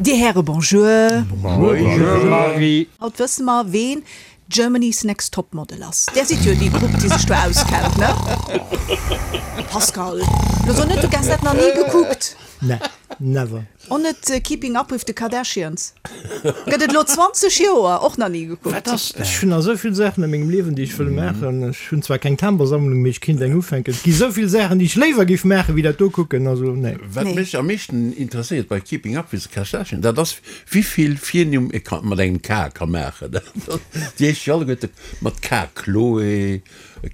Dir Häre bonjour. Bonjour Marie. Haut wësse mer ween Germany's Next Top Model ass. Där sidd jo déi Grupp déi sech do auskennt, ne? Pascal, lo so net du gess dat nach ni gekuckt. Ne, never. Och net Keeping Up with the Kardashians? Gëtt et elo 20 Joer, och nach ni gekuckt. Wat ass dat? Ech hunn nach esou vill Saachen a mengem Liewen, déi ech wëll maachen. Ech hunn zwar keng Tambersammlung, mee ech kinnt eng ufänken. Et gi esou vill Saachen, déi ech léiwer géif maachen, wéi dat do kucken. Also, nee. Wat mech am meeschten interesséiert bei Keeping Up with the Kardashians, dat ass, wéi vill Virnimm ee ka mat engem K ka maachen. Déi heescht jo alleguerte mat K, Khloé,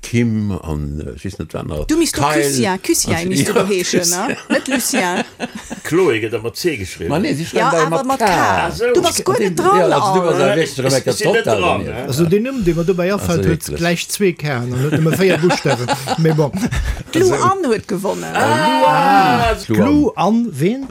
Kim an ech weess net wat nach. Du misst do Lucien, Lucien misst du do heeschen, ne? Net Lucien. Chloé gëtt ëmmer C geschriwwen. Ma nee, si schreiwen dat awer mat K. Du bass guer net dran. Jo, also du bass awer wierklech erëm eng Ech sinn net dran, ne? Also deen Numm, dee mer dobäi afält, huet gläich zwee K'en an huet nëmme 4 Buschtawen. Mee bon. D'Lou Anne huet gewonnen. Ah! D'Lou Anne ween?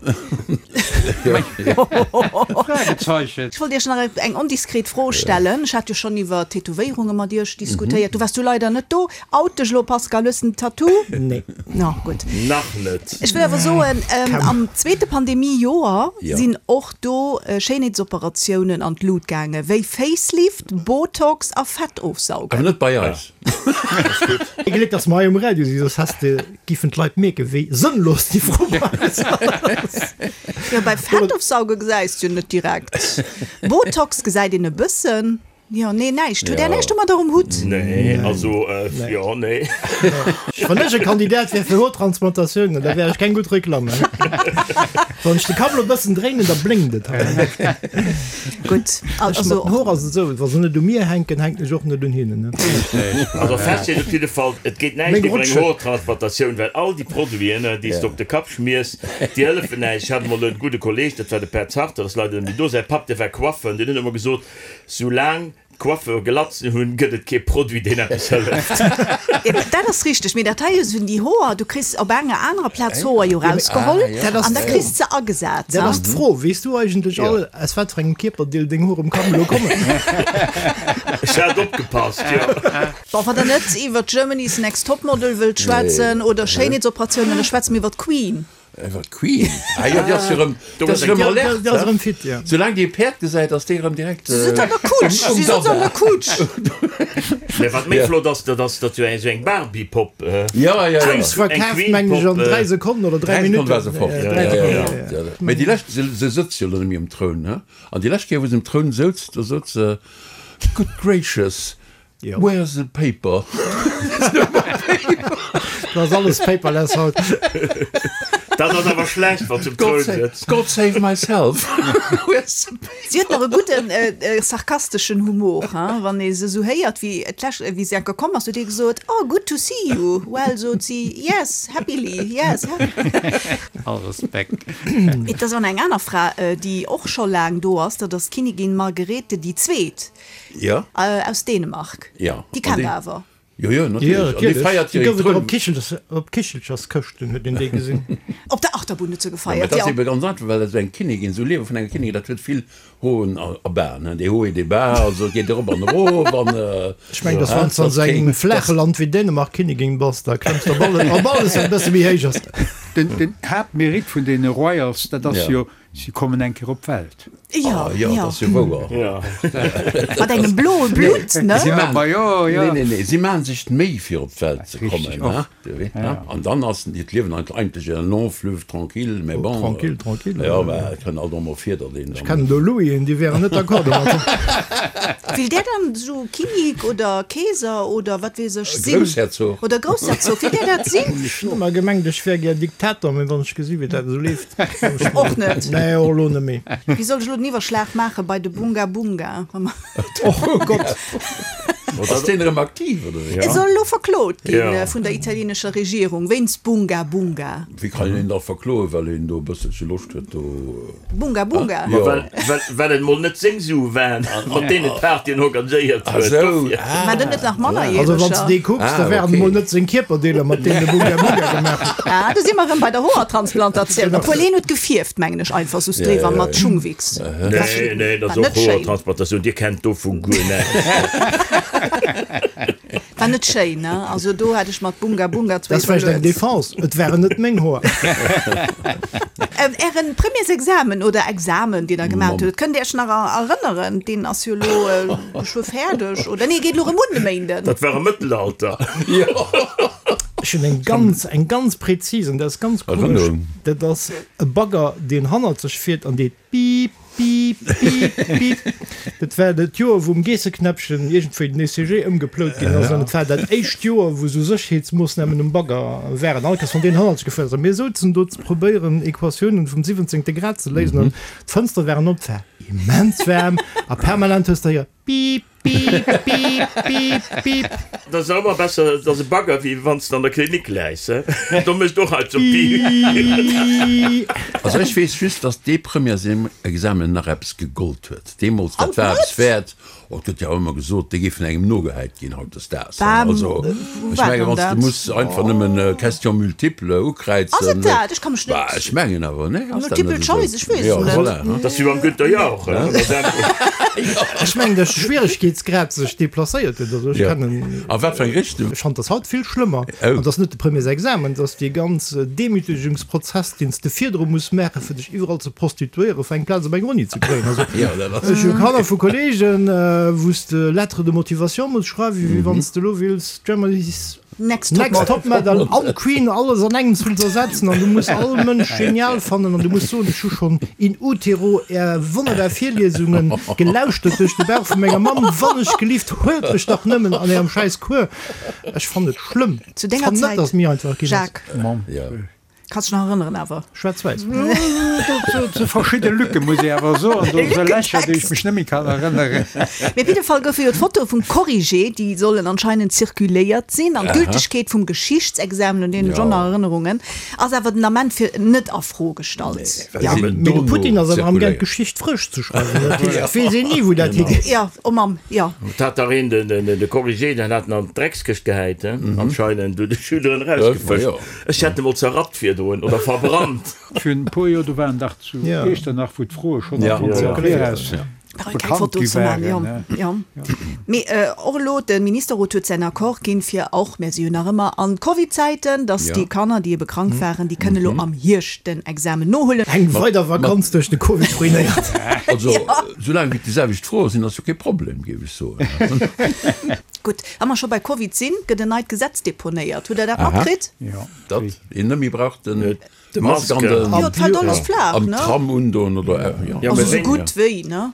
Fragezeichen. Ech wollt Iech nach eng ondiskret Fro stellen. Ech hat jo schonn iwwer Tätowéierunge mat Iech diskutéiert. Du waars du leider net do. Out dech elo, Pascal. Hues de en Tattoo? Nee. Na gutt. Nach net. Ech wëll awer soen, am zweete Pandemie-Joer sinn och do Schéinheetsoperatiounen an d'Lut gaange wéi Facelift, Botox a Fettofsaugen. Awer net bei eis. Ee Gléck, dass mer hei um Radio sinn, soss häss de giffen d'Leit mierken, wéi sënnlos déi Fro bei eis ass. Jo, bei Fettofsauge gesäis de jo net direkt. Botox gesäit een e bëssen. Jo, nee, näischt. Hutt Där näischt domadder um Hutt? Nee, also, jo, nee. Wann ech e Kandidat wär fir Hoertransplantatiounen, da wär ech keng gutt Reklamm. Wann ech de Kapp elo e bëssen dréinen, da blénkt et hei. Gutt, also. Mat den Hoer ass et esou, wa se net u mir hänken, hänken ech och net un hinnen. Also fest steet op jidde Fall, et geet näischt iwwer eng Hoertransplantatioun, well all déi Produiten, déi s de op de Kapp schmiers, déi hëllefen näischt. Ech hat emol e gudde Kolleeg, dat war de Pär Zarter, ass leider net méi do, säi Papp, dee war Coiffeur, an deen huet ëmmer gesot, Soulaang d'Coiffeure Glatzen hunn, gëtt et kee Produit, deen eppes hëlleft. Dat ass richteg, mee dat hei sinn déi Hoer, du kriss op enger anerer Plaz Hoer jo rausgeholl an da kriss de se agesat. Dat ass d'Fro, Weess du eigentlech all, aus wat fir engem Kierperdeel deng Hoer um Kapp elo kommen? Ech hat opgepasst, jo. Bon, wann der net iwwer Germany's Next Topmodel wëllt schwätzen oder Schéinheetsoperatiounen, da schwätze mir iwwer d'Queen. Iwwer d'Queen? Ah jo, déi ass jo rëm, déi ass rëm alert, Déi ass rëm fit, jo. Soulaang déi e Päerd gesäit, ass déi rëm direkt Si sëtzt an der Kutsch, si sëtzt an der Kutsch. Mä wat méi flott ass, dat ass, datt jo eng esou eng Barbie-Popp, Jo, jo, jo. Déi ass verkaaft, mengen ech, an 3 Sekonnen oder 3 3 Minutten. Sekonne war se fort, Ja, 3 jo, Sekonnen, jo, jo. Mä déi lescht, se, se sëtzt jo elo net méi um Troun, he? An déi lescht Kéier, wou se um Troun souz, do sot se, Good gracious, Where's the paper? Dat ass alles paperless haut. Dat ass awer schlecht, wann s um Troun sëtz. God save myself. Where's the paper? Si huet nach e gudden sarkasteschen Humor, hein? Wann ee se esou héiert, wéi d'lescht, wéi se enker komm ass, huet ee gesot, Oh, good to see you. Well, sot si, yes, happily, yes, happily. All Respekt. Et ass awer eng aner Fra, déi och scho laang do ass, dat ass d'Kinnigin Margerete déi Zweet. Ja. Aus Dänemark. Ja. Déi kennt der awer. Jo, jo, natierlech. An déi feiert jo hiren Gouf et Troun. op Kichelchers, op Kichelcherskëschten huet een déi gesinn. Op der Achterbunn huet se Ja, mä gefeiert, dat ass jo. ebe ganz einfach, well esou eng Kinnigin, esou Liewe vun enger Kinnigin, dat huet vill Hoen a a Baen, hein, des Hauts et des Bas, also et geet erop an erof an, Ech mengen, dass hein, wann s de an dat esou engem kéint, flaache dat. Land wéi Dänemark Kinnigin bass, da klëmms de op alles, op alles, wat e bësse méi héich ass. Den, den Haaptmérite vun deene Royals, dat ass Ja. jo, Si kommen eng Kéier op d'Welt. Jo, Ah jo, dat ass jo wouer. Jo. Mat engem bloe Blutt, ne? Si Ja, ma jo, jo. Nee, nee, nee, si maachen sech d'Méi fir op d'Welt ze Richtig, kommen, och. hein, du weess, Ja, hein. ja. An dann ass hiert Liewen eigentlech en long fleuve tranquille, mais bon. Tranquille, tranquille. Jo, mä et kënnt alt och mol vir, datt een Ech dann. kennen do Louisen, déi wären net d'accord domat. Will där dann esou Kinnik oder Keeser oder wat weess ech sinn? Groussherzog. Oder Groussherzog, will där dat sinn? Ech hunn ëmmer gemengt, ech wär gär Diktator, mee wann ech gesi wéi dat esou leeft. Och net. Nee, och elo net méi. Wéi soll ech elo den Iwwerschlag maache bei de Bunga Bunga? Oh Gott! Ass deen erëm aktiv, oder wéi? E soll elo verklot gi vun der italienescher Regierung wéinst Bunga Bunga. Wéi kann een een da verkloen, well een do e bësselche Loscht huet do? Bunga Bunga? Jo. Well et mol net seng Sue waren, mat deenen d'Partyen organiséiert huet. Dofir. War dat net nach Mannerjäreger? Also wann s de dee kucks, da waren et mol net seng Kierperdeeler, mat deenen e Bunga Bunga gemaach huet. Ah, do si mer erëm bei der Hoertransplantatioun. Obwuel hien huet gefierft, mengen ech, einfach soss driwwer mat Schungwichs. Nee, nee, dat ass och Hoertransplantatioun. Dir kennt dovu guer näischt. War net schéin, ne? Also do hätt ech mat Bunga Bunga zwéi. Dat ass vläicht eng Defense, et waren net meng Hoer. Ären Premiersexamen oder Examen, deen der gemaacht hutt, kënnt Dir Iech nach erënneren? Deen ass jo elo geschwë fäerdeg, oder? Nee, geet elo erëm un de Méinden. Dat war am Mëttelalter. Ech hunn eng ganz, eng ganz präzis, an dat ass ganz komesch, dat ass e Bagger, deen hannert sech fiert an deet Piip, piip, piip, piip. Dat war dat Joer, wou um Geesseknäppchen iergendwéi den ECG ëmgeplout ginn ass. An et war dat éischt Joer, wou esou Sécherheetsmoossnamen um Bagger waren. All Kéiers, wann deen hannertzeg gefuer ass a mir souzen do ze probéieren, Equatiounen vum siwwenzéngte Grad ze léisen an d'Fënstere waren op, et war immens waarm a permanent hues de héiert, Piip, piip, piip, piip, piip. Dat ass ëmmer besser, et ass e Bagger, wéi wann s de an der Klinik läis, he? Do mécht och alt sou Piip. Also ech weess just, dass dee Premièresexamen nach eppes gegollt huet deemools. Dat war eppes wäert. Oh, et gëtt jo ëmmer gesot, déi géifen engem nogehäit ginn hautdesdaags. Also ech mengen, wann s de muss einfach nëmmen Question multiple ukräizen. Ass et dat? Ech ka mech net. Ech mengen awer, nee? Ass dat net Multiple choice, ech weess et net. Voilà. Dat ass wéi beim Günther Jauch, Ech mengen, dass de Schwieregkeetsgrad sech deplacéiert huet. Also ech kennen. A wat fir eng Richtung? Ech fand dat haut vill schlëmmer. An dass net de Premiersexamen, dass dee ganz Demütegungsprozess, deen s de virdru muss maachen, fir dech iwwerall ze prostituéieren, fir eng Plaz op enger Uni ze kréien. Also ech hu Kanner vu Kollegen, wou s de Lettre de motivation muss schreiwen, wéi wann s de elo wills Germany's Next Top Top Model an Queen alles an engems wëlls ersetzen an du muss all Mënsch genial fannen an du muss soen, ech hu schonn in utero är wonnerbar Virliesungen gelauschtert duerch de Bauch vu menger Mamm, wann ech gelift, huelt mech dach nëmmen an ärem schäiss Cours. Ech fannen et schlëmm. Zu denger Fann net, Zäit, dass mir einfach ginn ass. Jacques. Kanns dech nach erënneren awer. Schwaarz-wäiss. Do si verschidde Lücke muss ee awer soen, do si Lächer, déi ech mech net méi kann erënneren. Mee op jidde Fall goufe jo d'Fotoe vum Corrigé, déi sollen anscheinend zirkuléiert sinn, an d'Gültegkeet vum Geschichtsexamen, un deen hunn ech och nach Erënnerungen, ass awer den Ament fir net a Fro gestallt. Mee de Putin ass awer amgaang d'Geschicht frësch ze schreiwen, dat heescht et weess een ni wou dat higeet. Jo, oh Mamm, jo. Et hat dach een de Corrigé, deen hat en an d'Dreckskëscht gehäit, anscheinend, huet de Schüler en erausgefëscht. Ech hätt e mol zerrappt virdrun oder verbrannt. Virun e puer Joer, do waren dach zu Iechternach, wou d'Froe schonn am Fong am Viraus bekannt gi waren. Jo, mee och elo, de Ministerrot huet säin Accord ginn, fir och, mir si jo nach ëmmer an Covid-Zäiten, datt déi Kanner, déi ebe krank waren, déi kënne elo am Hierscht den Examen nohuelen. Eng weider Vakanz duerch de Covid ruinéiert. Also, soulaang wéi et déi selwecht Froe sinn, ass jo kee Problem, géif ech soen. Gutt, wa mer scho bei Covid sinn, gëtt en neit Gesetz deponéiert. Hutt Der dat matkritt? Jo. Datt een net méi brauch den Mask an den Jo, et fält alles flaach, am ne? Tram undoen oder jo. Also sou gutt wéi, ne?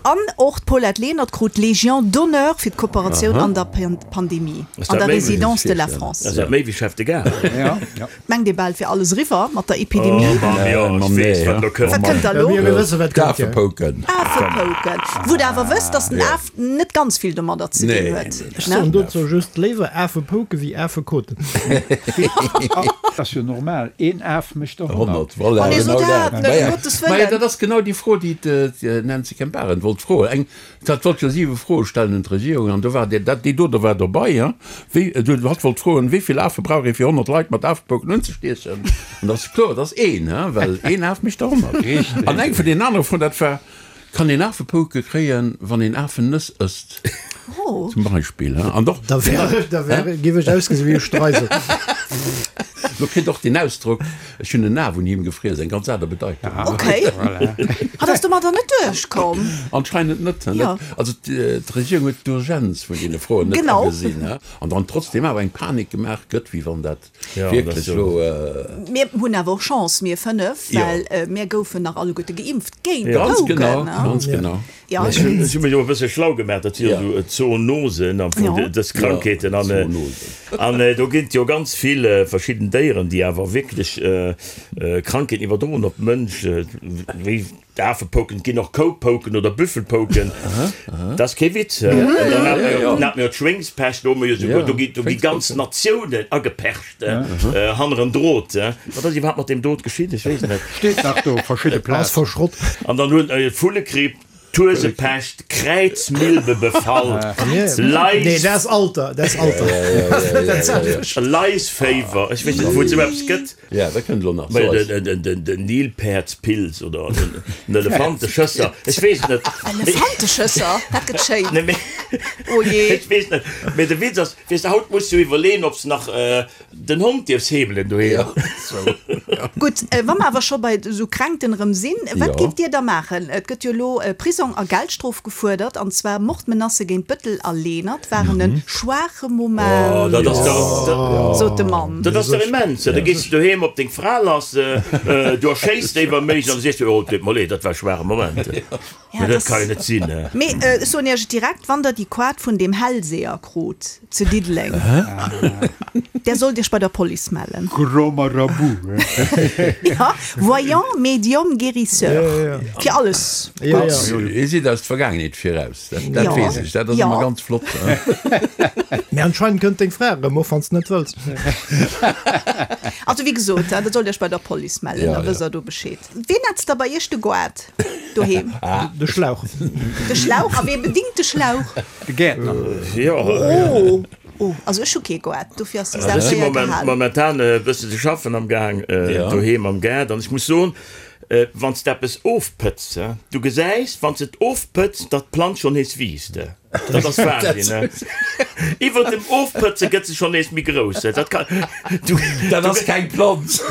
An och d'Paulette Lenert krut d'Légion d'honneur fir d'Kooperatioun an der Pandemie an der Résidence de la France. Ass dat méi wéi Chef de Gare? Jo. Mengt ee bal, et wier alles eriwwer mat der Epidemie. Oh Mamm, jo, ech weess, wat elo kënnt. Wat kënnt da elo? Mir wësse wat kënnt, jo. D'Afepouken. Afepouken. Wou der awer wësst, datt den Af net ganz vill domadder ze dinn huet, Ech ne? soen dozou just, léiwer Afepouke wéi Afekoten. Dat ass jo normal, een Af mécht der 100. 100, voilà, Oh nee, so genau dat dat. net, Maja, ëm Gottes maja, Wëllen. dat ass genau déi Fro, déi d'Nancy Kemp-Arendt wollt froen. Eng Dat wollt jo 7 Froe stellen un d'Regierung an do war dee, dat, déi do, do war dobei, hein, wéi, du, hatt wollt froen, wéi vill Afe brauch ee fir 100 Leit mat Afepouken unzestiechen? An dat ass kloer, dat ass een, hein, well een Af mécht der 100. Richtig. An eng vun deenen anere Froen, dat war, Kann een Afepouke kréien, wann een Afennëss ësst? Oh. Zum Beispill, hein. An och, Da wär ech, da wär, géif ech ausgesi wéi e Streisel. Lo kritt och deen Ausdrock, Ech hunn en Af un him gefriess, eng ganz aner Bedeitung. Ok. Hatt ass domadder net duerchkomm. Anscheinend net. Jo. Also d'Regierung huet d'Urgenz vun deene Froen net Genau. agesinn an dann trotzdem awer eng Panik gemaach gëtt, wéi wann dat wierklech elo. Mir hunn awer och Chance, mir 5, well mir goufen nach alleguerte geimpft géint Ganz d'Pouken. genau, ganz genau. Ja. Ech hunn mech och e bësse schlau gemaach, dat si jo esou Zoonosen am Fong, dës Krankheeten. An an do ginn et jo ganz vill verschidden Déieren, déi awer wierklech Krankheeten iwwerdroen op d'Mënsch, wéi d'Afepouken, et ginn och Koupouken oder Büffelpouken. Dat ass kee Witz. An dann hat mer jo d'Schwéngspescht, do hu mer jo souguer, do gi do gi ganz Natiounen agepercht hanneren Drot. Wat ass iwwerhaapt mat deem Drot geschitt? Ech weess et net. Steet nach do, verschidde Ass Plazen. verschrott. An dann hunn Vullegripp, D'Huesepescht, Kräizmilbebefall, Nee, dat ass Alter, dat ass Alter. Laisféiwer, ech weess net wou et esou eppes gëtt. Ja, dat kënnt elo nach. So eis. Den Nilpäerdspilz oder den Elefanteschësser, ech weess et net. Elefanteschësser, dat gëtt schéin. Nee, mee. Oh jee. Ech weess net, mee de Witz ass, weess de, haut muss du iwwerleeën, ob s de nach den Hond dierfs heemelen doheem. Gutt, wa mer awer scho bei esou Kränkten erëm sinn, wat géift Dir da maachen? Et gëtt jo elo Prisong a Geldstrof gefuerdert, an zwar Mordmenacë géint Bëttel a Lenert waren e schwaache Moment, sot de Mann. Dat ass dach immens! Da gees de doheem op deng Fra lass, du erschéiss déi wa méiglech an da sees du, oh, et deet mer leed, dat war e schwaache Moment. Ja, dat kann jo net sinn. Mee ech soen Iech et direkt, wann der déi Koart vun deem Hellseher krut zu Diddeleng, där sollt Iech bei der Police mellen. Grand Marabout. Ja, Voyant, Médium, Guérisseur. Fir alles gutt. Hie seet eis d'Vergaangenheet viraus, dat weess ech, dat ass ëmmer ganz flott. Mee anscheinend kënnt deng Fra erëm, och wann s de net wëlls. Also wéi gesot, der sollt Iech bei der Police mellen, da wësst der do Bescheed. Ween netzt da bei Iech de Goart doheem? De Schlauch. De Schlauch? A wee bedingt de Schlauch? De Gäertner. Jo. Oh, oh, also ech hu kee Goart, dofir ass déi Saach Ech si séier gehalen. momentan e bësse ze schaffen am Gaang doheem am Gaart an ech muss soen, wann s de eppes ofpëtz, du gesäis, wann s de et ofpëtz, datt d'Planz schonn nees wiisst. Dat ass Wahnsinn, ne? Iwwer dem Ofpëtze gëtt se schonn nees méi grouss. Dat kann, du, Dat ass keng Planz.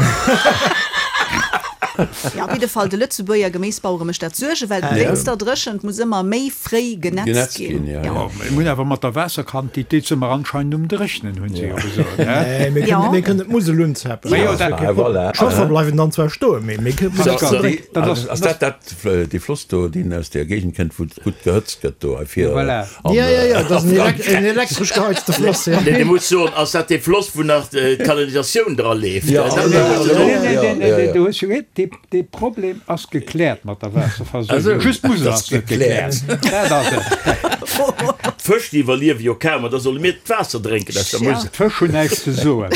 Jo, op jidde Fall, de Lëtzebuerger Geméisbauere mécht dat Suergen, well wéinst der Dréchent muss ëmmer méi fréi genetzt Genetzt ginn. ginn, ja, Jo. ja. Mir hunn awer mat der Waasserquantitéit si mer anscheinend um Dréchnen, hunn se jo gesot, ne? Nee, mir Ja. kënnen, mir kënnen d'Musel unzapen. Ma jo, dat- Dat ass kee Problem. Voilà. D'Schëffer bleiwen dann zwar stoen, mee mir kënnen Pascal, d'Musel drécken. dat ass, Ass dat dat, dee Floss do, deen aus där Géigend kënnt, wou et gutt gehëtzt gëtt do hei vir? Voilà. An, Ja, ja, ja, dat ass en a en elektresch geheizte Floss, ja. Nee, du muss soen, ass dat dee Floss, wou nach d'Kanalisatioun dra leeft? Ja, Dat ja, muss du ja, soen. Nee, nee, ja, nee, ja, nee, ja. du hues jo recht, dee, dee Problem ass gekläert mat der Waasserversuergung. Also, Just d'Musel dat ass ass net gekläert. gekläert. Dat ass et. D'Fësch, déi iwwerliewe jo kaum, an da solle mir d'Waasser drénken aus der Ja. Musel. D'Fësch hunn näischt ze soen.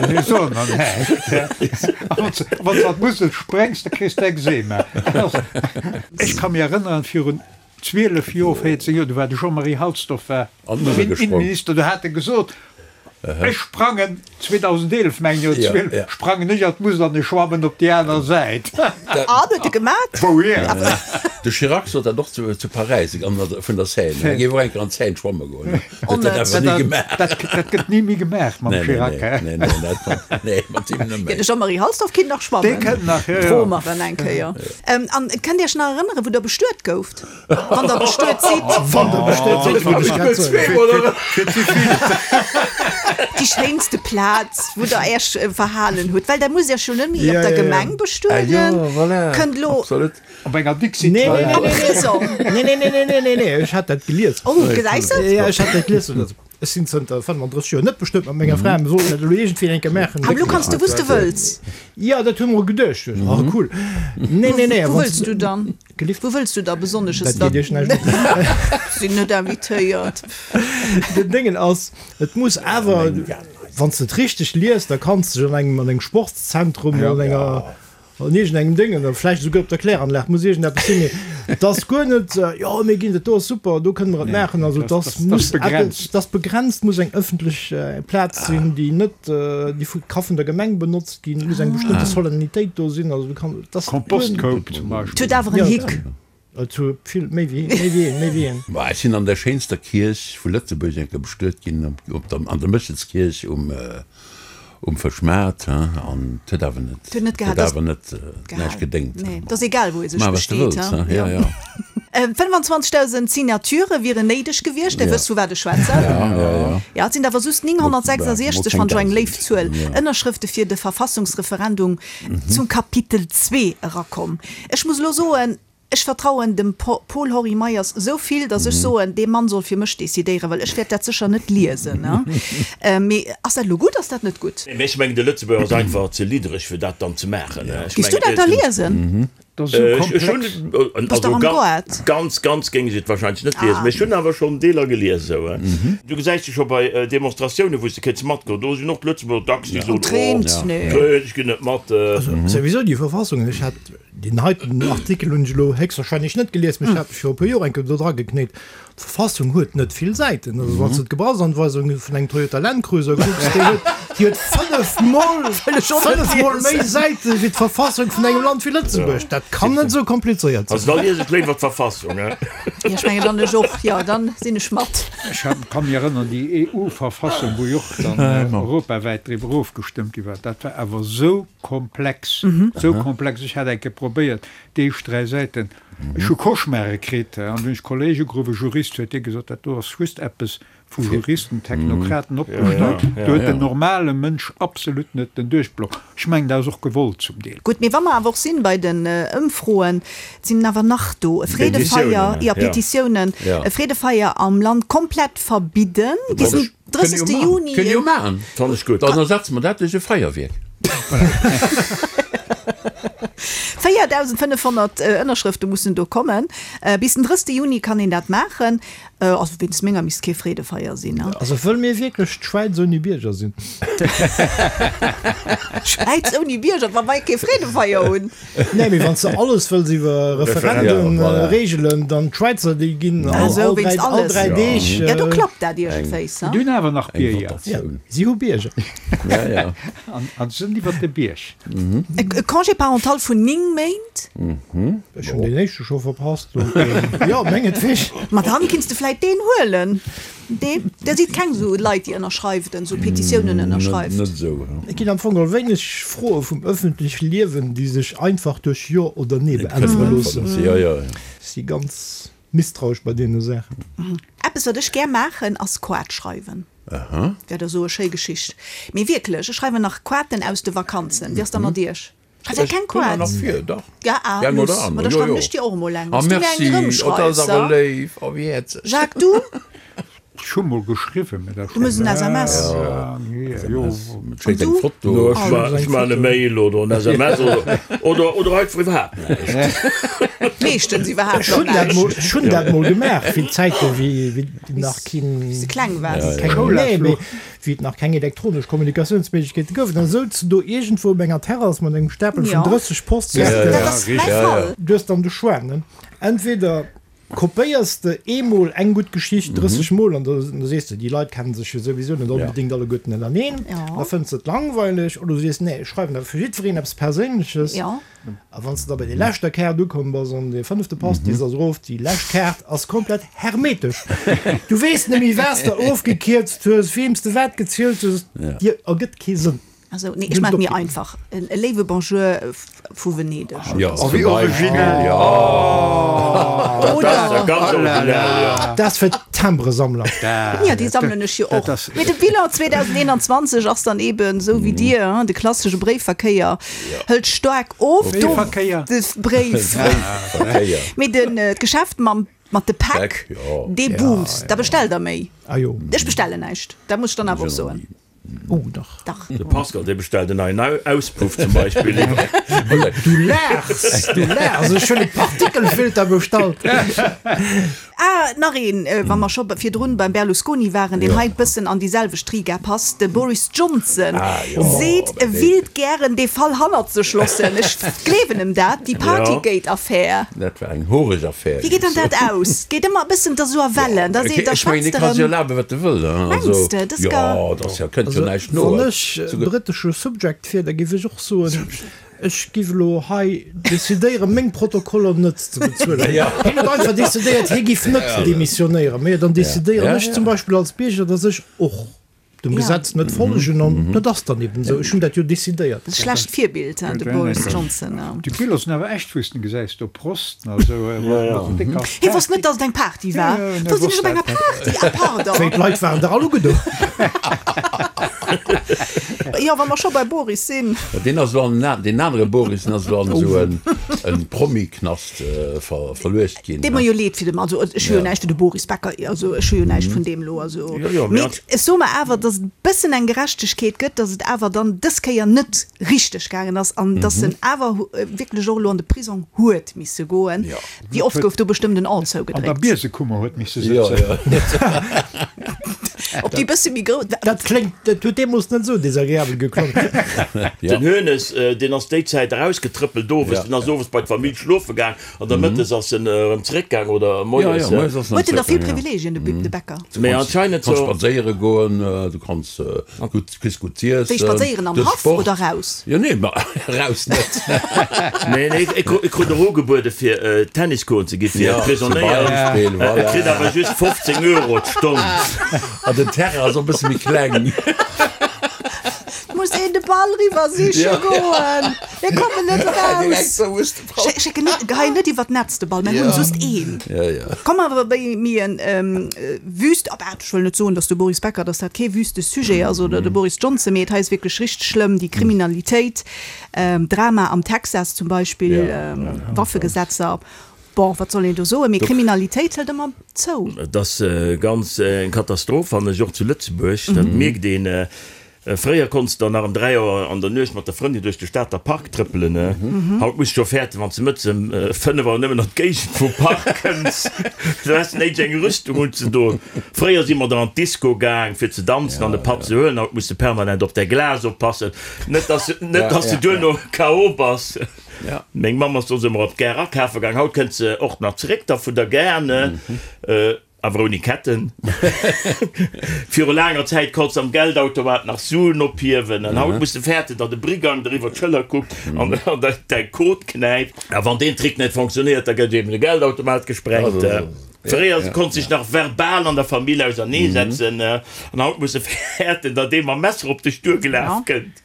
Mir soen der näischt. A wann s, wann s an d'Musel spréngs, da kriss de Ekzema. Dat ass, ech ka mir erënneren, virun 12 Joer, 14 Joer, do war de Jean-Marie Halsdorf war An d'Musel gesprong. Innenminister, do hat e gesot, ech sprangen, 2011 mengen ech, oder Ja, 12, ja. sprangen ech an d'Musel an ech schwammen op déi aner Säit. An, huet e gemat? Wouhier? De Chirac sot dat och zu, zu Paräis, an der, vun der Seine. Hie géif och eng Kéier an d'Seine schwamme goen. Huet dat awer ni gemaach. Dat, dat gëtt ni méi gemaach mam Nee, nee, Chirac, nee, hä? nee, nee, dat, nee, mat him net Jo, méi. de Jean-Marie Halsdorf kinnt nach schwammen. Dee kënnt nach, jo, jo. Froe mer en eng Kéier. An kënnt Iech nach erënneren, wou Der bestuet gouft? Wann Der bestuet sidd. Wann Der bestuet sidd, wollt ech grad soen. Fir ze vill. Déi schéinste Plaz, wou Der Äech verhalen hutt, well Der musst Iech jo net méi op der Gemeng bestueden. Kënnt elo. Absolut. Op enger Dixie. Nee, nee, nee, Am Prisong. nee, nee, nee, nee, nee, nee, nee, ech hat dat gelies. Oh, gesäis de? Ja, ech hat dat gelies. Ech sinn zënter 35 Joer net bestuet mat menger Fra, mir sollten dat elo iergendwéi eng Kéier maachen. Awer elo kanns du wou s de wëlls. Jo, dat hu mer geduecht. Oh, cool. Nee, nee, nee. Wou wëlls du dann? Gelift? Wou wëlls du da besonnesches? Dat geet iech näischt un. Sinn net invitéiert. Den Déngen ass, et muss awer, wann s de et richteg liest, da kanns de dech an engem, an engem Sportszentrum oder an enger, An iergendengem Déngen, oder vläicht esouguer op der Kläranlag, muss iergendeppes sinn, mee et ass guer net, jo mir ginn, dat do ass super, do kënne mer et maachen. Also et ass, muss eppes, et ass begrenzt, muss eng ëffentlech Plaz sinn, déi net, déi vu, ka vun der Gemeng benotzt ginn, et muss eng bestëmmte Solennitéit do sinn, also du kann, et ass guer net. Kompostkoup zum Beispill. Et huet awer en Hick. Et huet vill, méi wéi, méi wéi een, méi wéi een. Bah, ech sinn an der schéinster Kierch vu Lëtzebuerg eng Kéier bestuet ginn, op der, an der Méchelskierch um, um Fëschmaart, hein, an et huet awer net, Et huet net huet gehat, awer net näischt gedéngt. Nee, et ass egal, wou ee sech Maach, wat s de besteet, wëlls, hein. hein, ja, ja. 25.000 Signaturë wieren néideg gewiescht, Där wësst, vu wat ech schwätzen. Ja, ja, ja. Ja, et sinn awer just 966, Mol wann ech eng keng léif Zuel, Dausend, ja. Ënnerschrëfte fir de Verfassungsreferendum zum Kapitel zwee erakomm. Ech muss elo soen, ech vertrauen dem Paul-Henri Meyers esou vill, datt ech soen, dee Mann soll fir mech decidéieren, well ech wäert dat sécher net liesen. Mee ass dat elo gutt, ass dat net gutt? Mee ech mengen, de Lëtzebuerger ass einfach ze liddereg, fir dat dann ze maachen. Giss du dat da liesen? Dat ass esou komplex. Bass dach am Goart. Ganz, ganz géing ech et wahrscheinlech net liesen, mee ech hunn awer schonn Deeler gelies esou. Du gesäis se scho bei Demonstratiounen, wou s de kéints matgoen, do sinn och d'Lëtzebuerger dacks, déi soen, oh, nee, ech ginn net mat. Also souwisou déi Verfassung, ech hat deen heiten Artikel hunn ech elo héchstwahrscheinlech net gelies, mee ech hat mech viru e puer Joer eng Kéier do dra geknéit. D'Verfassung huet net vill Säiten. Also wann s de d'Gebrauchsanweisung vun engem Toyota Land Cruiser kucks, déi huet, déi huet fënnefmol, fënnefmol méi Säite wéi d'Verfassung vun engem Land wéi Lëtzebuerg. Dat kann net esou komplizéiert sinn. Also da lies ech léiwer d'Verfassung, he? Jo, ech mengen dann ech och. Jo, dann sinn ech mat. Ech ka mir erënneren, déi EU-Verfassung, wou jo och dann europawäit driwwer ofgestëmmt gi war, dat war awer esou komplex, esou komplex. Ech hat eng Kéier probéiert, déi éischt dräi Säiten, Ech hu Cauchemare kritt an dunn hunn ech Kolléeg ugeruff, e Jurist, huet dee gesot, dat do ass just eppes vu Juristen, Technokraten opgestallt, do huet den normale Mënsch absolut net den Duerchblock. Ech mengen, dat ass och gewollt zum Deel. Gutt, mee wa mer awer och sinn bei den Ëmfroen, et sinn awer nach do, e Freedefeier, jo, Petitiounen, e Freedefeier am Land komplett verbidden bis den 30. Juni. Kënne jo maachen. Fannen ech gutt. Dann ersetze mer dat duerch e Feierwierk. 4.500 Ënnerschrëfte mussen do kommen. Bis den 30. Juni kann een dat maachen. Also wéinst menger misst kee Freedefeier sinn. Also wëlle mir wierklech d'Schwäiz ouni Bierger sinn? Schwäiz ouni Bierger, wa mer kee Freedefeier hunn? Nee, mee wann s de alles wëlls iwwer Referendum reegelen, dann d'Schwäizer, déi ginn all 3 Deeg. Jo, do klappt dat iergendwéis. Déi hunn awer nach Bierger. Si hu Bierger. An se sinn iwwer de Bierg. E Congé parental vun 9 Méint? Ech hunn deen éischte scho verpasst, donc jo, mengetweg. Ma dann kinns de vläit deen huelen. Nee, der sidd keng sou Leit déi ënnerschreift, sou Petitiounen ënnerschreift. Net esou. Et ginn am Fong geholl wéineg Froe vum ëffentleche Liewen, déi sech einfach duerch Jo oder Nee beäntwere loossen. Ech si ganz misstrauesch bei deene Saachen. Eppes wat ech gär maachen ass Quart schreiwen. Wäert der soe schéi Geschicht. Mee wierklech, ech schreiwen nach Quarten aus de Vakanzen. Wéi ass da mat iech? Schreift der keng Quart? Nach vir, dach. Ja, ah, Eng luss. oder aner, Ma da jo, schreiwen jo. ech dir och emol eng, Ah, wann s du mir eng merci. Oh, dat erëmschreifs, ass awer ha? léif. Oh, wéi häerzeg. Jacques, du? Ech hu mol geschriwwen, mee dat Du muss en SMS. Ja, jo. Et schéckt eng du? Foto. No, ech ma, ech man e Mail oder en SMS oder, oder, oder einfach iwwerhaapt näischt. Meeschtens iwwerhaapt Ech hunn nach dat mol, näischt. ech hunn dat mol gemaach, wéi d'Zäite wéi, wéi nach keen, Wéi s de kleng waars. keng, nee, mee wéi et nach keng elektronesch Kommunikatiounsméiglechkeete gouf, dann souz de do iergendwou op enger Terrass mat engem Stapel vun 30 Postkaarten. Dat ass mäi Fall. Du hues dann de Choix, ne? Entweder kopéiers de eemol eng gutt Geschicht 30 Mol an da sees de, déi Leit kennen sech jo souwisou net onbedéngt alleguerten ënnereen, da fënns de et langweileg, oder du sees, nee, ech schreiwen awer fir jiddwereen eppes Perséinleches. A wann s de da bei déi leschter Kaart ukomm bass an dee fënnefte Pastis ass erof, déi lescht Kaart ass komplett hermetesch. Du weess net méi, wat s de ofgekierzt hues, weem s de wat gezielt hues, dir ergëtt kee Sënn. Also, nee, ech maache et mir einfach, e léiwe Bonjour vu Venedeg. Jo, Oh, wéi originell! Oh, Dat ass ja ganz originell, jo. Dat ass fir d'Timbresammler. Ja, déi sammelen ech jo och. Mee de Bilan 2021 ass dann eben esou wéi dir, de klassesche Bréifverkéier. Hëlt staark of. Bréifverkéier. De Bréifverkéier. Mee den d'Geschäft mam mat de Päck, dee boomt. Da bestellt der méi. Ah jo. Ech bestellen näischt, dat muss ech dann awer och soen. Oh dach. Dach. De Pascal, dee bestellt en neien Auspuff zum Beispill. Du laachs, du laachs. Ech hunn e Partikelfilter bestallt. Ah, nach een, wa mer scho virdrun beim Berlusconi waren, deen hei bëssen an déi selwecht Riga passt, de Boris Johnson seet, e willt gären dee Fall hannert sech loossen. Ech gleewen em dat, déi Partygate-Affär. Dat war eng horeg Affär. Wéi geet dann dat aus? Geet ëmmer e bëssen, et ass esou a Wellen, da seet, da Ech mengen, schwätzt e ka erëm. sech erlaben, wat e wëll. Mengs de? Dat ass gar. Jo, dat ass jo, kënnt jo näischt no. Wann ech britesche Subject wier, da géif ech och soen, Ech giff elo hei decidéieren, meng Protokoller net ze bezuelen. Hien huet einfach decidéiert, hie giff net demissionéieren. Mee dann decidéieren ech zum Beispill als Bierger, datt ech och dem Gesetz net follegen an dat ass dann eben esou. Ech hunn dat jo decidéiert. Schlecht Virbild, de Boris Johnson. Déi Biller sinn awer echt, wou s de gesäis, do Prosten a sou. Hie wosst net, datt et eng Party war. Do sinn ech op enger Party, ah pardon. Wéi d'Leit waren der all ugedo. Jo, wa mer scho bei Boris sinn. Deen ass elo an, deen anere Boris, deen ass elo an esou en Promi-Knast verluecht ginn. Deet mer jo leed fir de Mann. Also ech hu jo näischt fir de Boris Becker, also ech hu jo näischt vun deem elo, also. Mee ech soe mer awer, datt et e bëssen eng Gerechtegkeet gëtt, datt et awer dann dës Kéier net richteg gaangen ass an datt en awer wierklech och elo an de Prisong huet misse goen. Wéi oft gouf do bestëmmt en An zougedréckt. An der Biesekummer huet misse sëtzen. Op déi bësse méi grouss. Dat kléngt, dat huet deemools net esou desagreabel geklongen. Den Hoeneß, deen ass déi Zäit erausgetrëppelt owes, deen ass owes bei d'Famill schlofe gaang an da mëttes ass en erëm zeréckgaang oder moies. Huet en da vill Privilegien, de Bäcker? Mee anscheinend so. Du kanns spadséiere goen, du kanns gutt, kriss gutt z'iessen. Wéi spadséieren, am Haff oder raus? Jo, nee, ma raus net. Nee, nee, e krut och ugebuede fir Tennis goen ze gi fir Prisonéier. E kritt awer just 15 Euro d'Stonn. An den Terrain ass och e bësse méi kleng. Muss een de Ball riwwer siche goen. Mir kommen net eraus. Schécken net, geheien net iwwer d'Netz de Ball, mir hunn just een. Komm awer bei mir en wüst, ah bah, ech wëll net soen, datt de Boris Becker, datt dat kee wüste Sujet ass oder de Boris Johnson, mee et hei ass wierklech richteg schlëmm, déi Kriminalitéit, Drama am Texas zum Beispill, Waffegesetzer, bon, wat soll een do soen, mee Kriminalitéit hëlt ëmmer zou. Et ass ganz eng Katastroph, fannen ech, och zu Lëtzebuerg, dat mierkt een. Fréier konns de nach em 3 Auer an der Nuecht mat der Frëndin duerch de Stater Park trëppelen. Haut muss de scho fäerten, wann s de mëttes em 5 Auer nëmmen an d'Géigend vum Park kënns. Do häss de néideg eng Rüstung unzedoen. Fréier si mer da an d'Disco gaang fir ze danzen an e Patt ze huelen. Haut muss de permanent op däi Glas oppassen, net dass net dass de duerno KO bass. Meng Mamm ass soss ëmmer op d'Gare akafe gaang. Haut kënnt se och nach zeréck da vun der Gare. Awer ouni Ketten. Viru laanger Zäit konns de am Geldautomat nach Suen ophiewen an haut muss de fäerten, datt e Brigang der iwwer d'Schëller kuckt an der däi Code knäipt. A wann deen Trick net fonctionnéiert, da gëtt eben de Geldautomat gesprengt. Fréier konns dech nach verbal an der Famill auserneesetzen an haut muss de fäerten, datt ee mam Messer op dech duergelaf kënnt.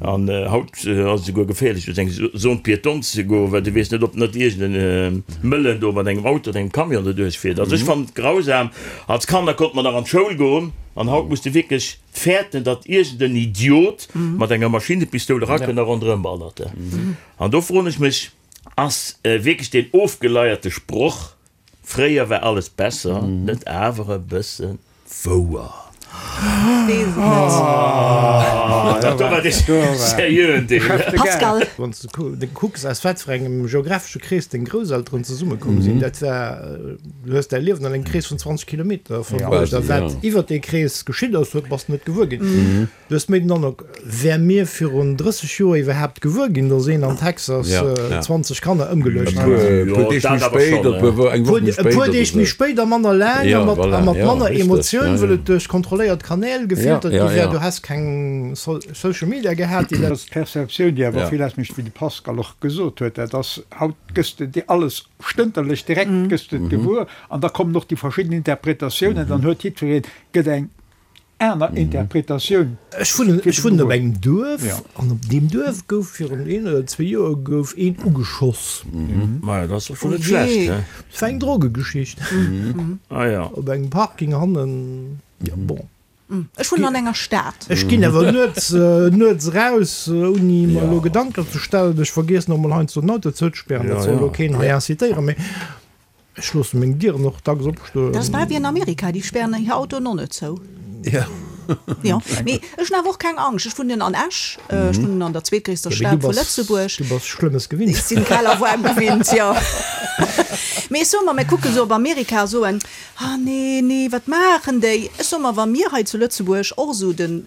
An haut ass et esouguer geféierlech duerch eng Zone piétonne ze goen, well du weess net, ob net iergend e Mëllen do mat engem Auto oder engem Camion doduerch fiert. Also ech fannen et grausam. Als Kanner konnte mer nach an d'Schoul goen an haut muss de wierklech fäerten, datt iergend en Idiot mat enger Maschinnepistoul erakënnt a ronderëm ballert. An do froen ech mech, Ass wierklech deen ofgeleierte Sproch Fréier war alles besser, net awer e bësse wouer? Weess et net. Dat do war dee seriöen Deel. Pascal. Wann s de kucks, aus wat fir engem geografesche Krees deng Grousselteren zesummekomm sinn, dat war, du hues däi Liewen an engem Krees vun 20 Kilometer verbruecht a wat iwwer dee Krees geschitt ass, huet, bass de net gewuer ginn. Du hues méi den Androck, wär mir virun 30 Joer iwwerhaapt gewuer ginn, datt een an Texas 20 Kanner ëmgeluecht huet? E puer Deeg méi spéit, eng Woch méi spéit. E puer Deeg méi spéit a manner laang a mat manner Emotioun, wëll et duerch kontrolléiert Kanäl gefiltert gi wär. Du häss keng Social Media gehat, déi dat. Dat ass d'Perceptioun, déi awer vill ausmécht, wéi de Pascal och gesot huet. Dat ass, haut gëss de dir alles stënterlech, direkt gëss de et gewuer an da kommen och déi verschidden Interpretatiounen, dann huet jiddwereen, gëtt eng aner Interpretatioun. Ech wunnen, ech wunnen op engem Duerf an op deem Duerf gouf virun een oder zwee Joer gouf een ugeschoss. Maja, dat ass doch scho net schlecht, he? Et war eng Drogegeschicht. Ah ja. Op engem Parking hannen, jo bon. Ech wunnen an enger Stad. Ech ginn awer nuets, nuets eraus, ouni mer elo Gedanken ze stellen. Ech vergiessen och mol heiansdo den Auto zouzespären, dat soll elo keen hei incitéieren, mee. Ech loossen meng Dieren och dacks opstoen. Dat ass bal wéi an Amerika, déi spären hir Autoen och net zou. Jo. Jo, mee ech hunn awer och keng Angscht. Ech wunnen an Esch, ech wunnen an der zweetgréisster Stad vu Lëtzebuerg. Du bass Schlëmmes gewinnt. Ech sinn kal a waarm gewinnt, jo. Mee ech soe mer, mir kucke sou op Amerika a soen, Ah nee, nee, wat maachen déi? Ech soe mer, wa mir hei zu Lëtzebuerg och esou den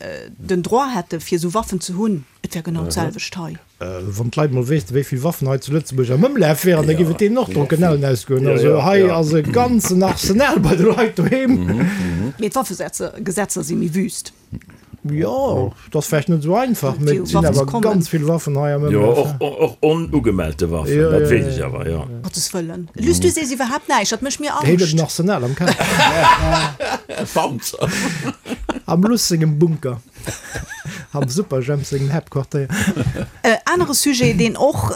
Droit hätte fir esou Waffen ze hunn, et wär genau d'selwecht hei. Wann d'Leit mol wéissten, wéi vill Waffen hei zu Lëtzebuerg am Ëmlaf wären, da géif et deenen och d'Drocken ausgoen. Also hei ass e ganzen Arsenal bei de Leit doheem. Mee d'Waffegesetzer si méi wüst. Jo, et ass vläicht net esou einfach, mee et sinn awer ganz vill Waffen hei am Ëmlaf. Jo, och onugemellte Waffen, dat weess ech awer, jo. Gottes Wëllen. Luss, du sees iwwerhaapt näischt, dat mécht mir Angscht. Hien huet en Arsenal am Keller. E Panzer. Am Luss sengem Bunker. Am Superjhemp sengem Haaptquartéier. Anere Sujet, deen och,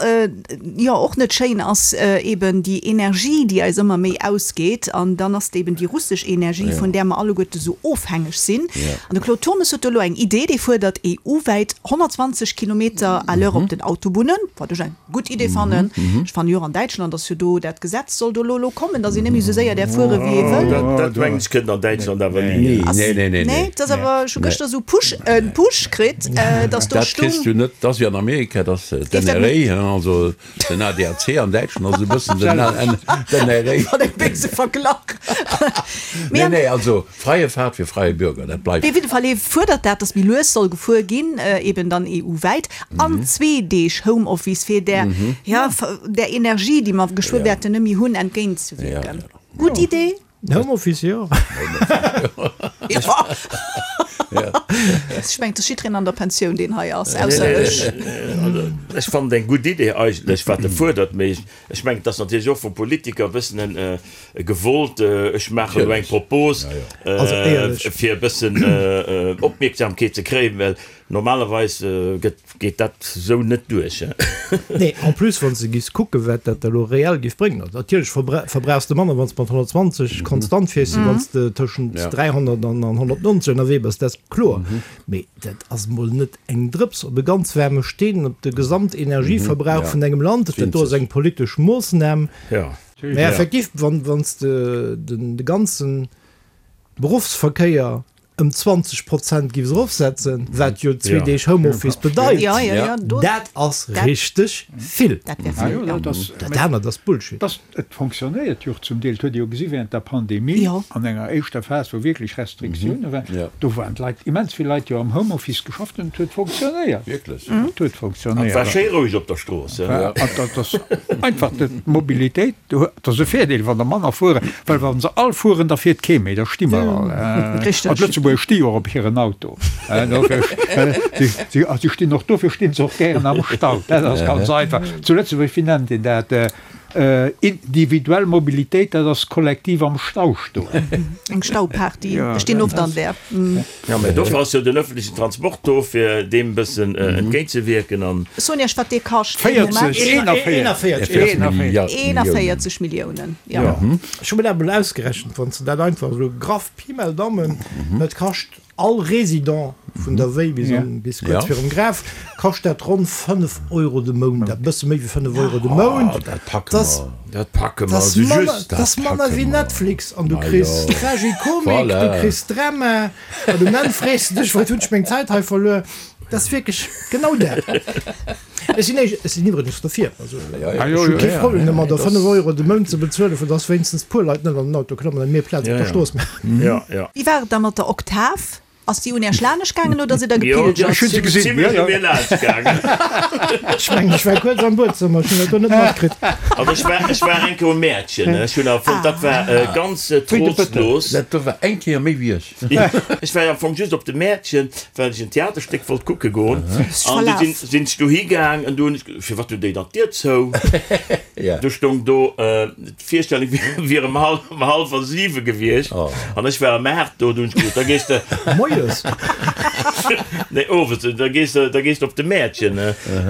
jo, och net schéin ass, eben déi Energie, déi eis ëmmer méi ausgeet. An dann ass et eben déi russesch Energie, vun där mer alleguerte sou ofhängeg sinn. An de Claude Turmes huet do elo eng Idee, dee fuerdert EU-wäit 120 Kilometer à l'heure op den Autobunnen, wat ech eng gutt Idee fannen. Ech fannen jo och an Däitschland ass jo do dat Gesetz soll do elo elo kommen, datt een net méi esou séier däerf fuere wéi ee wëll. Dat mengen ech kënnt an Däitschland awer ni. Nee, nee, nee. Nee, dat ass awer, ech hu gëschter esou Push, en Push kritt, datt do Dat kriss stung. du net, dat ass wéi an Amerika. dat ass d'NRA, also den ADAC an Däitschland ass e bëssen den NRA. Wat e béise Verglach! Nee, nee, also freie Fahrt für freie Bürger, dat bleift. Op jidde Fall, hie fuerdert dat, datt méi lues soll gefuer ginn, eben dann EU-wäit, an zwee Deeg Homeoffice, fir där, ja, där Energie, déi mer geschwë wäerten net méi hunn, entgéintzewierken. Gutt Idee? Homeoffice, jo. Ech mengen, et ass jiddereen an der Pensioun, deen hei ass, ausser ech. Ech fannen et eng gutt Idee eigentlech, wat e fuerdert, mee ech mengen, et ass natierlech och vum Politiker e bëssen e gewollt, ech maachen elo eng Propos, fir e bëssen Opmierksamkeet ze kréien, well normalerweis gëtt Geet dat sou net duerch, he? Nee, en plus wann s de giffs kucken, wat dat elo reell giff bréngen. Also natierlech verbrauchs de manner, wann s de mat 120 konstant fiers, wéi wann s de tëschent 300 an 190 ënnerwee bass, dat ass kloer. Mee dat ass mol net eng Drëps op e ganz waarme Steen, op de Gesamtenergieverbrauch vun engem Land. Dat do ass eng politesch Moossnam. Mee effektiv, wann s de de ganzen Beruffsverkéier ëm 20 Prozent giffs erofsetzen, wat jo zwee Deeg Homeoffice bedeit, dat ass richteg vill. Dat anert ass Bullshit. Et fonctionnéiert jo och zum Deel. Et huet ee jo gesi während der Pandemie, an enger éischter Phas, wou wierklech Restriktioune waren, do waren d'Leit, immens vill Leit jo am Homeoffice geschafft an et huet fonctionnéiert. Et huet fonctionnéiert. Et war schéi roueg op der Strooss. Dat ass einfach d'Mobilitéit. Et ass e Virdeel, wann der manner fueren, well wa se all fueren, da fiert kee méi, da sti mer all. An d'Lëtzebuerger sti jo och op hiren Auto. Si stinn och, dofir sti se och gären am Stau. Dat ass ganz einfach. Zu Lëtzebuerg, wéi nennt een dat? Individuell Mobilitéit, dat ass kollektiv am Stau stoen. Eng Stauparty. Ech stinn oft an där. Jo, mä dofir ass jo den öffentlichen Transport do, fir deem e bëssen entgéintzewierken an. Soen Iech, wat dee kascht. 40, 41, 41 Milliounen, jo. Ech hu mir dat emol ausgerechent, wann s de dat einfach esou graff, Pi mal Daumen, dat kascht all Résident vun der Wéi bis an, bis kuerz virum Graf, kascht dat ronn 5 Euro de Mount, dat bësse méi wéi 5 Euro de Mount. Dat packe mer. Dat packe mer esou just. Dat ass manner wéi Netflix an du kriss Tragikomik, du kriss Drama an um Enn frees de dech, Wat hunn ech meng Zäit hei verluer? Dat ass wierklech genau dat. Ech sinn ech sinn iwwregens dofir. Also ech hu kee Problem domadder, 5 Euro de Mount ze bezuelen, fir dass wéinstens puer Leit net an den Auto klammen an mir Plaz op der Strooss maachen. Wéi war et da mat der Oktav? Ass déi un Äech laanescht gaangen oder sidd der gepilgert? Ech hunn se gesinn, jo, jo. Ech mengen, ech war kuerz am Buedzëmmer, ech hunn dat do net matkritt. Also ech war, ech war eng Kéier um Mäertchen, ech hunn awer fonnt, dat war ganz trostlos. Dat do war eng Kéier méi wéi ech. Ech war am Fong just op de Mäertchen, well ech en Theaterstéck wollt kucke goen. An du sinn, sinn ech dohi gaang an du hunn ech, firwat hunn déi dann d'Dier zou? Du stoung do, D'Virstellung wier ëm hallwer siwe gewiescht an ech war ëm 8 do. Du hunn ech gesot, da gees de. Moies? Nee, owes. Da gees de, da gees de op de Mäertchen.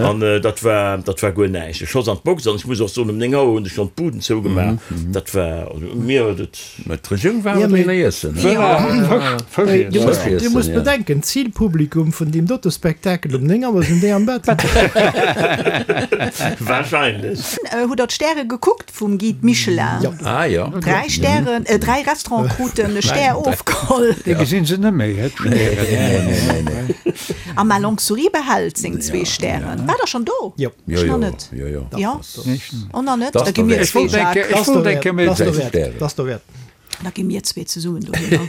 An dat war, dat war guer näischt. E Schoss an d'Box an ech muss och soen, ëm 9 Auer hunn ech schonn d'Buden zougemaach. Dat war, also mir huet et. Mä d'Regierung war awer deen Iessen. Fësch iessen. Dir musst bedenken, d'Zilpublikum vun deem dote Spektakel um 9 Auer sinn déi am Bett. Wahrscheinlech. Hutt der d'Stäre gekuckt vum Guide Michelin? Jo. Ah jo. Dräi Stären, dräi Restaurante kruten e Stär ofgeholl. Déi gesinn se net méi, he, d'Stären. Nee, nee, nee. A Ma Longue Souris behält seng zwee Stären. Waart der schonn do? Jo. Ech nach net. Jo, jo. Jo? Oh, nach net? Da gi mir Ech wollt zwee, eng Jacques. Kéier, ech wollt eng Kéier méi. Ass derwäert. Ass derwäert. Da gi mir zwee zesummen dohinner.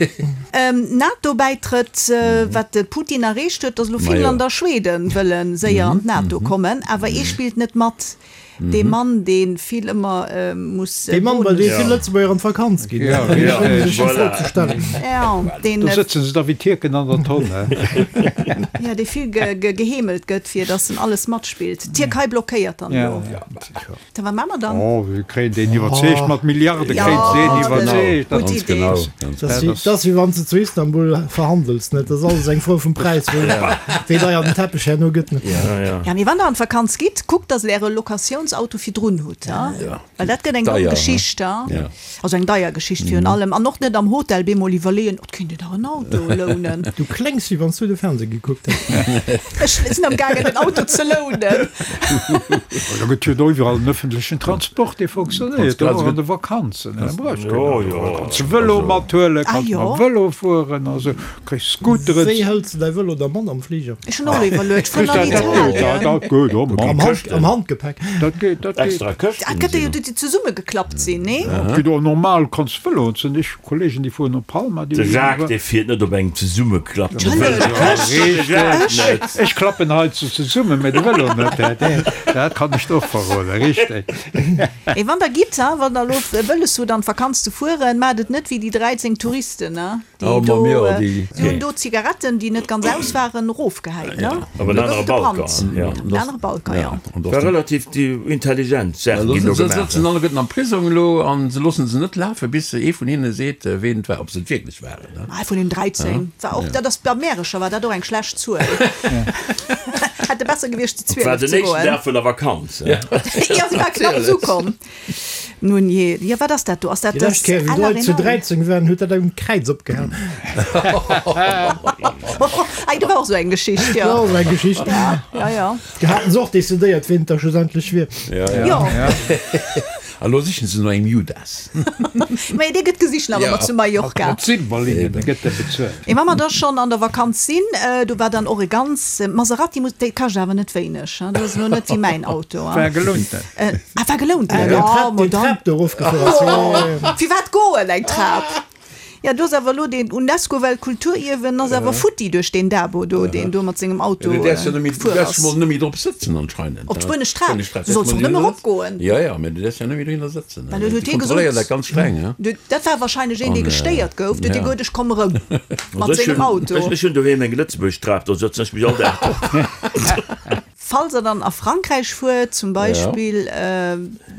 NATO-Bäitrëtt, Wat de Putin erreecht huet, datt elo Finnland a Schweden wëlle séier an d'NATO kommen, awer ee spillt net mat, dee Mann, dee vill ëmmer muss. Dee Mann, bei deem vill Lëtzebuerger an d'Vakanz ginn. Do sëtzen se da wéi Tierken an der Tonn. Jo, dee vill geheemelt gëtt, fir datt en alles matspillt. D'Tierkei blockéiert dann elo. Da wat maache mer dann? Oh, se kréien deen iwwerzeegt, mat Milliarde kréien se deen iwwerzeegt. Gutt Idee. Genau. Dat ass wéi wann s de zu Istanbul verhandels, net? Dat ass alles eng Fro vum Präis, wéi deier den Teppech herno gëtt. Ja, mee wann der an d'Vakanz gitt, kuckt, dass der äre Locatiouns. Lounsauto virdrun hutt, well dat gëtt eng domm Geschicht, also eng deier Geschicht virun allem, an och net am Hotel bemol iwwerleeën, oh, et kéint een dach en Auto lounen. Du kléngs wéi wann s du de Fernseh gekuckt häss. Ech sinn am gaangen den Auto ze lounen. Da gëtt jo do iwwerall en ëffentlechen Transport, dee fonctionnéiert, och an de Vakanzen. Da brauchs keen Auto. Da kanns de Vëlo mathuelen, kanns mam Vëlo fueren a sou. Kriss Scooteren. Wéi hëls de däi Vëlo da mat am Fliger? Ech hunn och iwwerluet, vun an Italien. Dat geet och mat. Am Hand, am Handgepäck. Dat geet, dat geet. Extra Këschten. Dat gëtt jo déi zesummegeklappt sinn, nee? Dat geet och normal, kanns Vëlo. Et sinn ech Kollegen, déi fueren op Palma, déi De Jacques, dee fiert net op engem zesummeklappte Vëlo. Richteg. Ech klappen hei ze zesummen, mä de Vëlo net. Dat kann ech der och verroden, richteg. Mee wann der gitt, wann der elo wëlles hutt an d'Vakanz ze fueren, maacht et net wéi déi 13 Touristen, Déi do, déi hunn do Zigaretten, déi net ganz aus waren, erofgehäit, ne? Op en anere Balcon, jo. Op en anere Balcon, jo. War relativ intelligent Saachen ginn do gemaach. Se sëtzen alleguerten am Prisong elo a se loosse se net lafen, bis ee vun hinne seet, ween et war, ob se et wierklech waren. Ee vun den 13 war och, dat ass bei Märecher war dat och eng schlecht Zuel. Hätte besser gewiescht zu 12 ze goen. War den éischten Dag vun der Vakanz. Jo, se war knapps ukomm. Nun jee, jo wat ass dat do? Ass dat Déi lescht Kéier wéi d'Leit zu 13 waren, huet dat um Kräiz opgehal. Ei, do war och sou eng Geschicht, jo. Dat war och sou eng Geschicht. Ja, ja, ja. Do haten se och decidéiert, ween et da schlussendlech wier. Ja, ja. Jo. A lo sichen se no engem Judas. Mä dee gëtt gesicht nach ëmmer zu Mallorca. Mat Silberlingen gëtt e bezuelt. Mee wa mer da schonn an der Vakanz sinn, do war dann och e ganz Maserati, muss, dee kascht awer net wéineg, dat ass elo net wéi mäin Auto. War gelounten. Ah, war gelount ginn. Ah, ma dann. Trap do erofgefuer ass. Oh, firwat goen eng Trap? Ja, do ass awer elo deen Unesco-Weltkulturierwen ass awer futti duerch deen Dabo do, deen do mat sengem Auto Du däerfs jo net méi, du gefuer däerfs ass. mol net méi drop sëtzen anscheinend. Op d'spuenesch Trap? Du solls och net méi eropgoen. Jo, jo, mä du däerfs jo net méi dohinner sëtzen. Well huet Déi hie gesot, kontrolléieren dat ganz streng, he? Du, dat war wahrscheinlech een, dee gestéiert gouf. Du huet hie gesot, ech komm erëm mat sengem Auto. Ech hunn doheem eng Lëtzebuerg Trap, do sëtzen ech mech all Dag drop. Falls der dann a Frankräich fuert, zum Beispill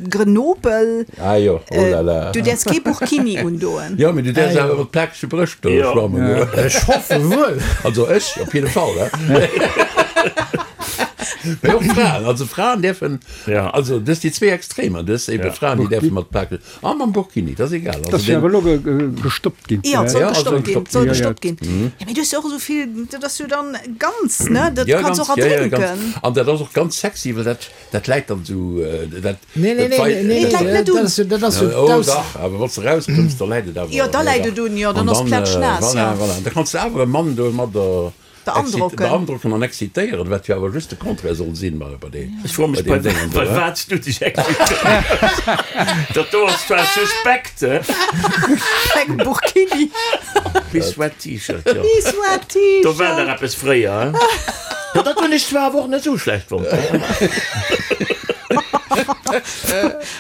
Grenoble, Ah jo, oh la la. du däerfs kee Burkini undoen. Jo, mee du däerfs awer mat plakege Brëscht do schwammen goen. Ech hoffe wuel. Also ech op jidde Fall, he. Mee och Fraen, also Fraen däerfen, also dës déi zwee Extremer, dës ebe Fraen, déi däerfe mat plakege, a mam Burkini, dat ass egal. Dat ass jo awer elo gestoppt ginn. Jo, et soll gestoppt ginn, et soll gestoppt ginn. Jo, mee du hues jo och esou vill, dat ass jo dann ganz, ne, dat kanns och erdrénken. An dat ass och ganz sexy, well dat, dat läit dann esou, dat. Nee, nee, nee, nee, et läit net un. Dat ass jo Oh dach, awer wann s de erauskëmms, da läit et awer. Jo, da läit et un, jo, dann ass plätschnaass, jo. Voilà, voilà, da kanns de awer e Mann domadder. Beandrocken. Beandrocken an excitéieren, wat jo awer just de Contraire soll sinn bei bei deem Ech froe mech, bei deem Déngen do, bei he? wat s du dech excitéiers. Dat do ass zwar suspekt, he? Engem Burkini. Bis wet T-Shirt, jo. Bis wet T-Shirt. Do war nach eppes fréier, he? Jo, dat hunn ech zwar awer och net esou schlecht fonnt.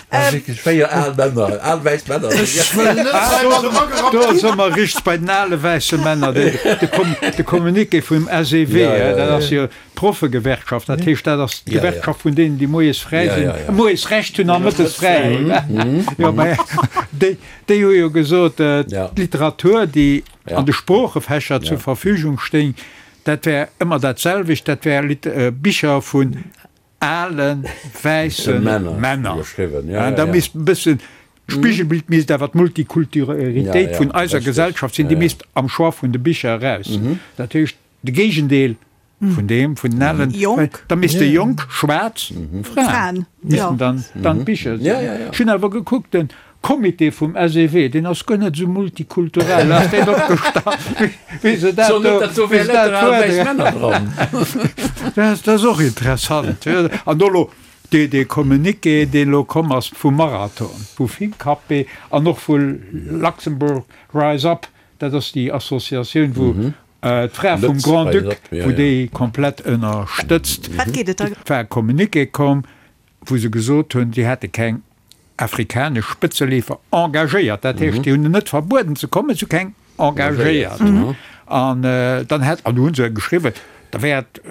Ah, wierklech 4 al Männer, al wäiss Männer. Ech wëll net heimat Do si mer richteg bei den ale wäisse Männer. De Communiqué vum SEW, dat ass jo d'Proffegewerkschaft, dat heescht, dat ass d'Gewerkschaft vun deenen, déi moies fräi sinn, moies Recht hunn a mëttes fräi hunn. Jo, mä déi, déi hu jo gesot, d'Literatur, déi an de Sproochefächer zur Verfügung stéing, dat wär ëmmer dat selwecht, dat wär Bicher vun ale wäisse Männer. Da misst e bëssen, d'Spigelbild misst awer d'Multikulturalitéit vun eiser Gesellschaft sinn, déi misst am Choix vun de Bicher eraus. Dat heescht, de Géigendeel vun deem, vun den alen, da misste jonk schwaarz Fraen missten dann d'Bicher sinn. Ech hunn awer gekuckt, den Comité vum SEW, deen ass guer net esou multikulturell, ass deen opgestallt, wéi se dat do, wéi se dat fuerderen. Dat ass och interessant. An do elo dee, dee Communiqué, deen elo komm ass vum Marathon, vu Fincapé an och vu Luxembourg Rise Up, dat ass déi Associatioun, wou d'Fra vum Grand-Duc, wou déi komplett ënnerstëtzt, war e Communiqué komm, wou se gesot hunn, si hätte keng afrikanesch Spëtzeleefer engagéiert. Dat heescht, déi hunn en net verbueden ze kommen, se hu keng engagéiert. An dann hätt, an do hu se geschriwwen, da wär et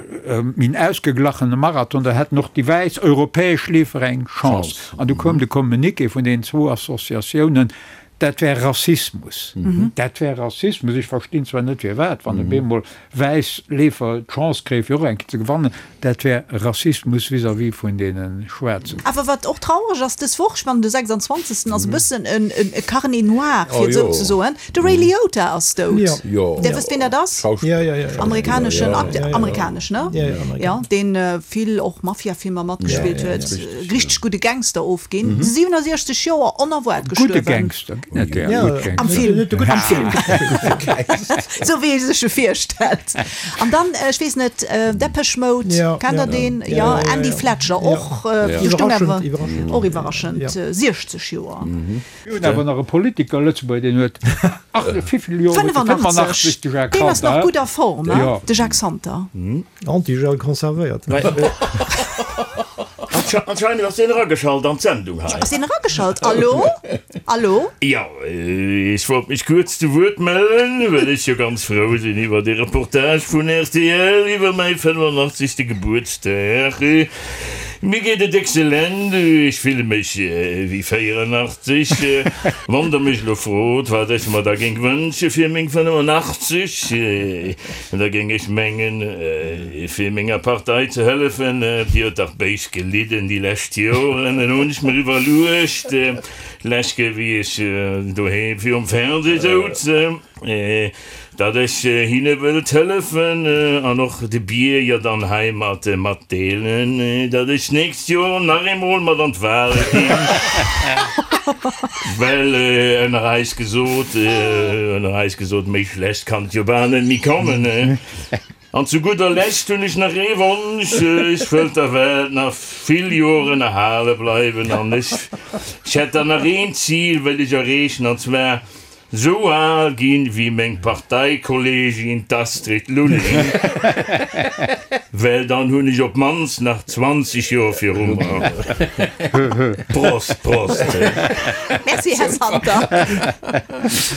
méi en ausgeglachene Marathon, da hätten och déi wäiss europäesch Leefer eng Chance. An du koum de Communiqué vun deenen zwou Associatiounen. Dat wär Rassismus. Dat wär Rassismus. Ech verstinn zwar net firwat, wann op eemol wäiss Leefer d'Chance kréie fir och eng Kéier ze gewannen, dat wär Rassismus vis-à-vis vun deene Schwaarzen. Awer wat och traureg ass, dës Woch, ech mengen de 26. ass e bëssen e Carnet noir, fir et esou ze soen, de Ray Liotta ass dout. Dir wësst wien dat ass? Amerikaneschen Acteur, amerikanesch, ne? Jo, deen vill och Mafia-Filmer matgespillt huet, richteg gudde Gangster ofginn, 67 Joer onerwaart gestuerwen. Gudde Gangster, ginn et där? Gutt Gangster. Am Film, am Film. Sou wéi ee sech e virstellt. An dann, ech weess net, Depeche Mode, kennt der deen? Jo, Andy Fletcher, och iwwerraschend, och iwwerraschend, 60 Joer. Mir hunn awer nach e Politiker, Lëtzebuerger, deen huet, ach, wéivill Joer huet e? 85, de Jacques Deen ass nach Santer. gutt a Form, hein, de Jacques Santer. Antigel conservéiert. Anscheinend ass deen erageschalt an d'Sendung hei. Ass deen erageschalt? Allo? Allo? Jo, ech wollt mech kuerz zu Wuert mellen, well ech jo ganz frou sinn iwwer dee Reportage vun rtl iwwer mäi 85. Gebuertsdag. Mir geet et excellent, ech fille mech wéi 84. Wann der mech elo frot, wat ech mer da géing wënsche fir meng 85, da géing ech mengen, fir menger Partei ze hëllefen. Déi huet dach béis gelidden déi lescht Joren. Elo hunn ech mer iwwerluecht, lech Kéier wéi ech doheem virum Fernseh souz, Datt ech hinne wëllt hëllefen an och de Bierger dann heimat matdeelen, datt ech d'nächst Joer nach eemol mat an d'Wale ginn, well ënner eis gesot, ënner eis gesot, méi schlecht kann et jo bal net méi kommen. An zu gudder Lescht hunn ech nach ee Wonsch, Ech wëllt der Welt nach vill Joren erhale bleiwen an ech hätt dann nach een Zil wëll ech erreechen, an zwar Sou al ginn wéi meng Parteikollegin d'Astrid Lulling, well dann hunn ech op d'mannst nach 20 Joer viru mer. Prost, Prost! Merci, Här Santer.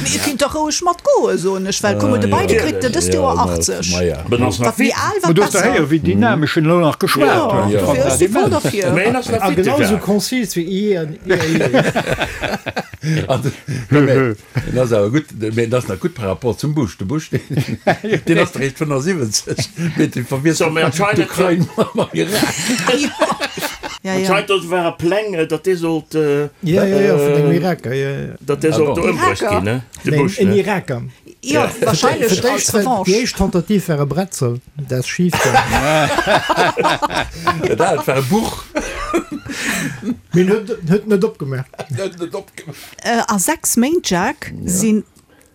Mee Dir kinnt dach roueg matgoen, soen ech, well kuck mol, de Biden kritt dëst Joer 80. Wat méi al, wat besser. Du hues der héieren, wéi dynamesch en elo nach geschwat huet. Jo, dofir, ech si voll derfir. Mee en ass nach A fit, de genau sou Jacques. konzis wéi i an i a i. En ass awer gutt, mee en ass nach gutt par rapport zum Bush. De Bush, deen ass eréischt 75, mee dee verwiesselt d'Ukrain mam Irak. Anscheinend do ware Pläng, datt dee sollt, Ja, ja, ja, vun engem Iraker, ja, ja. datt dee sollt do ëmbruecht ginn, ne? De Bush, En ne? Iraker. Jo, wahrscheinlech als Revanche. Déi éischt Tentative war e Bretzel, dat ass schif gaangen. Dat war e Buch. Mee en huet net opgemaach. Huet net opgemaach. A 6 Méint, Jacques, si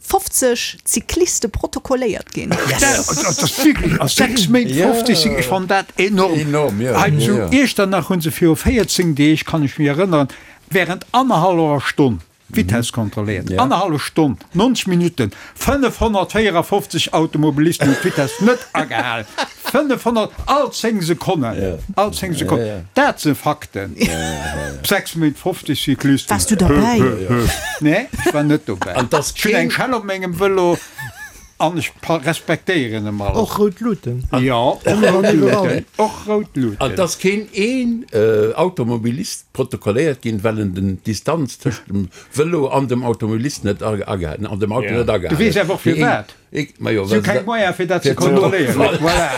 50 Cycliste protokolléiert ginn. Dat ass wierklech, a 6 Méint 50 Cyclisten, ech fannen dat enorm. Enorm, jo. Hei zu Iechternach hu se viru 14 Deeg, kann ech mech erënneren, während annerhallwer Stonn D'Vitess kontrolléiert, annerhallef Stonn, 90 Minutten, 554 Automobilisten hunn d'Vitess net agehalen. 500, all 10 Sekonnen, all 10 Sekonnen. Dat si Fakten. 6 Méint, 50 Cyclisten. Waars du derbäi? Nee, ech war net dobäi. Ech hunn eng Schell op mengem Vëlo. An ech respektéieren em all. Och rout Luuten. Jo, och rout Luuten. Och rout Luuten. An et ass keen een Automobilist protokolléiert ginn, well en den d'Distanz tëscht dem Vëlo an dem Automobilist net agehalen, an dem Auto net agehalen Du weess awer och firwat. Majo, Si hu keng Moyen fir dat ze kontrolléieren. Voilà.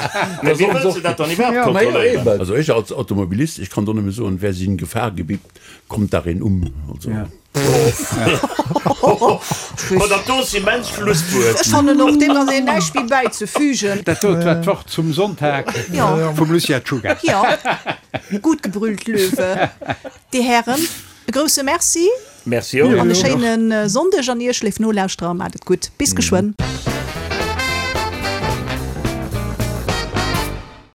Mä wéi wëlls de dat dann iwwerhaapt kontrolléieren? Also ech als Automobilist, ech kann do nëmme soen, wer sich in Gefahr begibt, kommt darin um. Also. Ma dat do ass immens Schlusswuert. Ech fannen och, deem ass een näischt méi bäizefügen. Dat dot war d'Wort zum Sonntag vum Lucia Czuga. Jo, gut gebrüllt, Löwe. Dir Hären, e grousse Merci. Merci och. An e schéine Sonndeg an Iech, léif Nolauschterer. Maacht et gutt. Bis geschwënn.